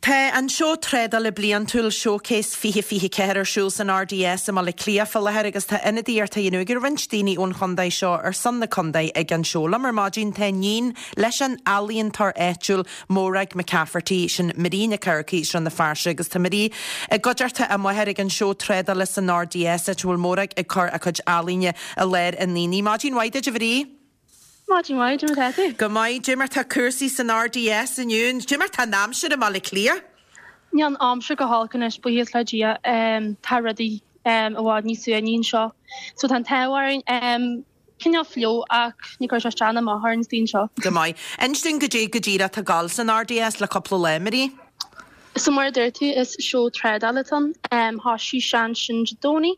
Tá an seó trádála bliantúil Showcase 2024 ar siúl san RDS i mBaile Átha Cliath fá láthair agus tá ionadaíocht á dhéanamh ag roinnt daoine ón chontae seo ar son na contae ag an seó. Liom ar maidin tá iníon leis an ealaíontóir áitiúil Morag McCafferty, sin Marie Nic Eachmharcaigh as Srath na Fearsaide agus tá Marie i gcuideachta a máthar ag an seó trádála san RDS áit a bhfuil Morag ag cur a cuid ealaíne i láthair an aonaigh. Maidin mhaith duit a Mharie. Maidin mhaith, cad é mar atá tú? Go maith, cad é mar tá cúrsaí san RDS inniu, cad é mar tá an aimsir i mBaile Átha Cliath? Níl an aimsir go holc anois, buíochas le Dia. Tá rudaí i bhfad níos suaimhní anseo. So tá an t-ádh orainn. Cineál fliuch ach ní chuirfidh sé isteach ná amach orainn istigh anseo. Go maith. Inis dúinn goidé go díreach atá ag gabháil san RDS le cúpla lá, Marie. So mar a dúirt tú, is seó trádála atá ann. Thosaigh sé ansin Dé Domhnaigh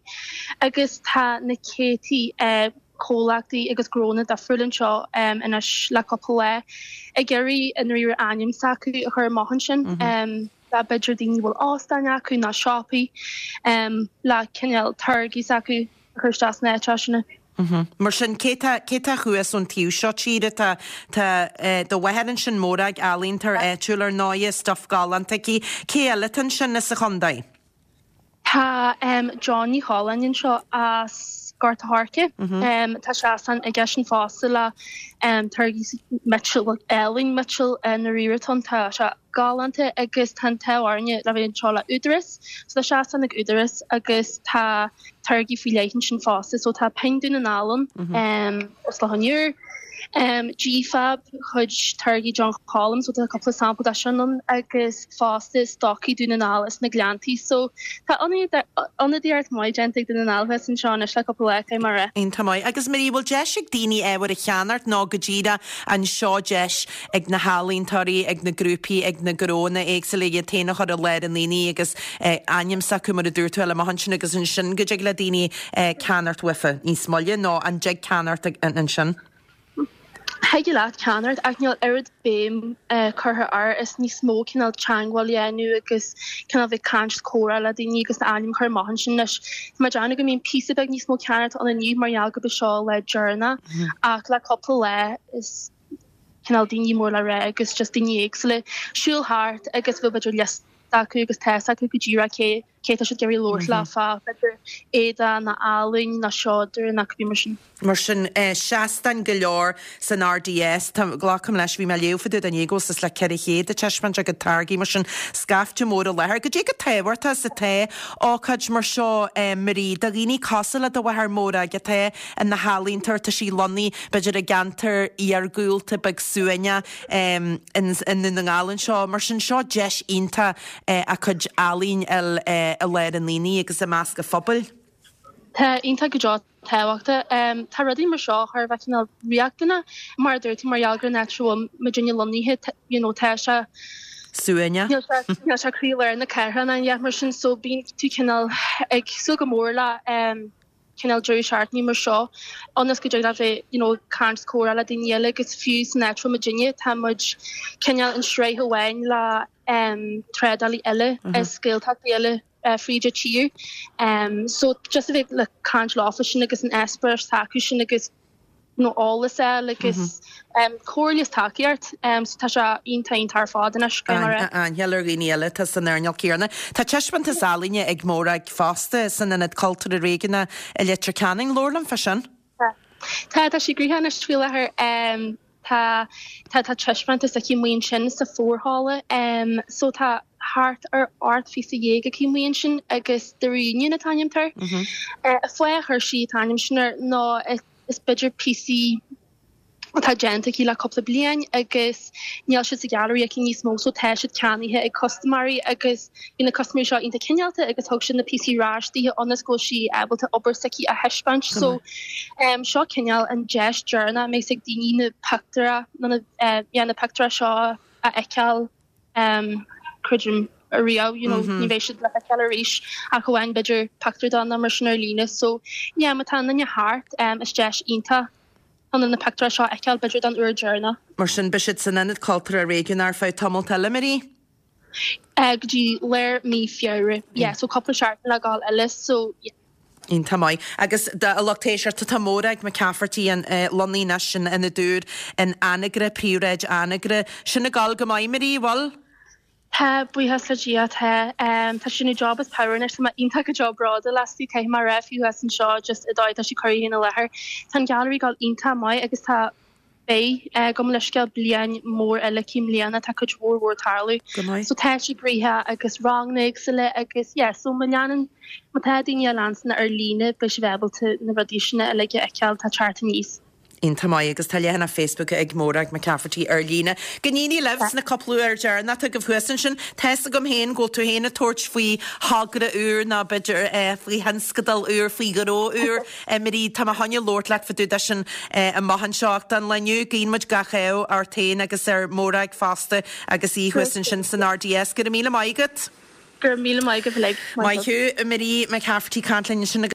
agus tá na céadtaí comhlachtaí agus gnónna difriúla anseo anois le cúpla lá ag iarraidh i ndáiríre ainm s'acu a chur amach ansin. B'fhéidir daoine a bhfuil óstáin acu nó siopaí le cineál táirgí s'acu a chur isteach sna háiteacha sin. Mar sin, cé tá, cé tá thuas ón taobh seo tíre? Tá, tá do mháthair ansin, Morag, ealaíontóir áitiúil ar ndóighe, stuif galánta aici. Cé eile atá ansin as an chontae? Tá John Ní Choileáin anseo as Gort a' Choirce. Tá seastán aigesean fosta le táirgí miotail, bhuel ealaín miotail i ndáiríre atá ann. Tá sé galánta agus tá an t-ádh orainne le bheith anseo le Údarás. So tá seastán ag Údarás agus tá táirgí faoi leith ansin fosta. So tá Pinn Dún na nGall ann, as Loch an Iúir. G-Fab, chuid táirgí John Colum, so tá cúpla sampla de sin ann agus fosta Stocaí Dún na nGall as na Gleanntaí. So tá ionadaíocht maith déanta ag Dún na nGall thuas anseo anois le cúpla lá, caithfidh mé a rá. Iontach maith. Agus Marie, bhfuil deis ag daoine ábhar a cheannacht nó go díreach an seo deis ag na healaíontóirí, ag na grúpaí, ag na gnóanna éagsúla iad féin a chur i lár an aonaigh agus ainm s'acu mar a dúirt tú a fháil amach ansin agus ansin go dtig le daoine ceannacht uafa níos moille nó an dtig ceannacht ansin? Thig leat ceannacht ach níl oiread béim curtha air, is níos mó cineál teagmháil a dhéanamh agus cineál bheith caint is comhrá le daoine agus d'ainm a chur amach ansin anois. Tá mé ag déanamh go mbíonn píosa beag níos mó ceannacht ann inniu mar gheall gurb é seo lá deireanach ach le cúpla lá is cineál daoine mór le rá agus just daoine éagsúla siúl thart agus bheadh b'fhéidir liosta acu agus tá fhios acu go díreach cé cé tá siad ag iarraidh labhairt leo fá b'fhéidir éadaí nó ealaín nó seodra nó cibé mar sin. Mar sin, seastáin go leor san RDS. Tá, glacaim leis, bhí mé ag léamh fá dtaobh de inné go bhfuil suas le 400 ag taispeáint a gcuid táirgí, mar sin, scaifte mór i láthair. Goidé chomh tábhachtach is atá ócáid mar seo, Marie, do dhaoine cosúil le do mháthair Morag atá ina healaíontóir, tá sí lonnaithe, b'fhéidir, i gceantar iargúlta beag suaimhneach i nDún na nGall anseo. Mar sin, seo deis iontach a cuid ealaín a fháil i lár an aonaigh agus i measc an phobail. Tá iontach go deo tábhachtach. Tá rudaí mar seo thar a bheith cineál riachtanach, mar a dúirt tú, mar gheall gur an áit a bhfuil muidinne lonnaithe, you know, tá sé Suaimhneach. Níl sé, níl sé croílár na cathrach ná aon dhath mar sin, so bíonn tú cineál ag súil go mór le cineál deireadh seachtaine mar seo ionas go dtig leat bheith, you know, caint is comhrá le daoine eile agus fiú san áit a bhfuil muidinne, tá muid cineál in sraith amháin le trádálaí eile as Gaeltachtaí eile fríd an tír. So just a bheith le caint leofa sin agus an eispéireas atá acu sin agus you know, eolas a fháil agus comhairle is tacaíocht. So tá sé iontach iontach ar fad anois, caithfidh mé a rá. Aithne ar dhaoine eile atá san earnáil céanna. Tá taispeántas ealaíne ag Morag fosta san Ionad Cultúrtha Réigiúnach i Leitir Ceanainn. Labhair liom fá sin. Tá. Tá, tá sí gnoitheach anois faoi láthair. Tá, tá, tá taispeántas aici amuigh ansin sa forhalla. So tá thart ar 18 phíosa aici amuigh ansin agus The Reunion an t-ainm atá air. An fáth a chuir sí an t-ainm sin air ná is b'fhéidir píosaí atá déanta aici le cúpla bliain agus níl siad sa ghailearaí aici níos mó so tá siad ceannaithe ag custaiméirí agus bhí na custaiméirí seo iontach cineálta agus thug siad na píosaí ar ais dithe ionas go bhfuil sí ábalta obair s'aici a thaispeáint. So seo cineál an deis deireanach a mbeidh ag daoine na pictiúra nó na yeah na pictiúra seo a fheiceáil creidim ariamh you know ní bheidh siad le feiceáil arís ach amháin b'fhéidir pictiúr de nó mar sin ar líne. So yeah má tá aon duine thart is deis iontach chun na pictiúra seo a fheiceáil b'fhéidir don uair deireanach. Mar sin beidh siad san Ionad Cultúrtha Réigiúnach ar feadh tamalt eile, Marie? Go dtí lár mí Feabhra. Yeah, so cúpla seachtain le gabháil eile, so yeah. Iontach maith. Agus do lucht éisteachta, tá Morag McCafferty lonnaithe anois in Ionad Úr in Anagaire, Príomhshráid Anagaire. Sin ag gabháil go maith, Marie, bhfuil? Tá, buíochas le Dia, tá. Tá sí ag déanamh job as pabhar anois, tá mé iontach go deo bródúil aisti, caithfidh mé a rá, fiú thuas anseo just an dóigh atá sí ag cur í féin i láthair. Tá an Gallery ag dul iontach maith agus tá, beidh, gabh mo leithscéal, bliain mór eile aici i mbliana, tá cuid mhór mhór ag tarlú. Go maith. So tá sí gnoitheach agus ranganna éagsúla agus yeah, so má leanann, má tá daoine á leanstan ar líne beidh sibh ábalta na rudaí sin uilig a fheiceáil atá ag teacht aníos. Iontach maith agus tá leathanach Facebook ag Morag McCafferty ar líne. Go n-éirí libh sna cúpla uair deireanach atá agaibh thuas ansin. Tá's agam féin go bhfuil tú féin ag tabhairt faoi thogra úr nó b'fhéidir faoi thionscadal úr, faoi ghnó úr. Marie, tá mé chun labhairt leat fá dtaobh de sin amach anseo ach don lá inniu guíonn muid gach ádh ort féin agus ar Mhorag fosta agus í thuas ansin san RDS. Go raibh míle maith agat. Go raibh míle maith agaibh uilig. Maith thú. Marie McCafferty ag caint linn ansin.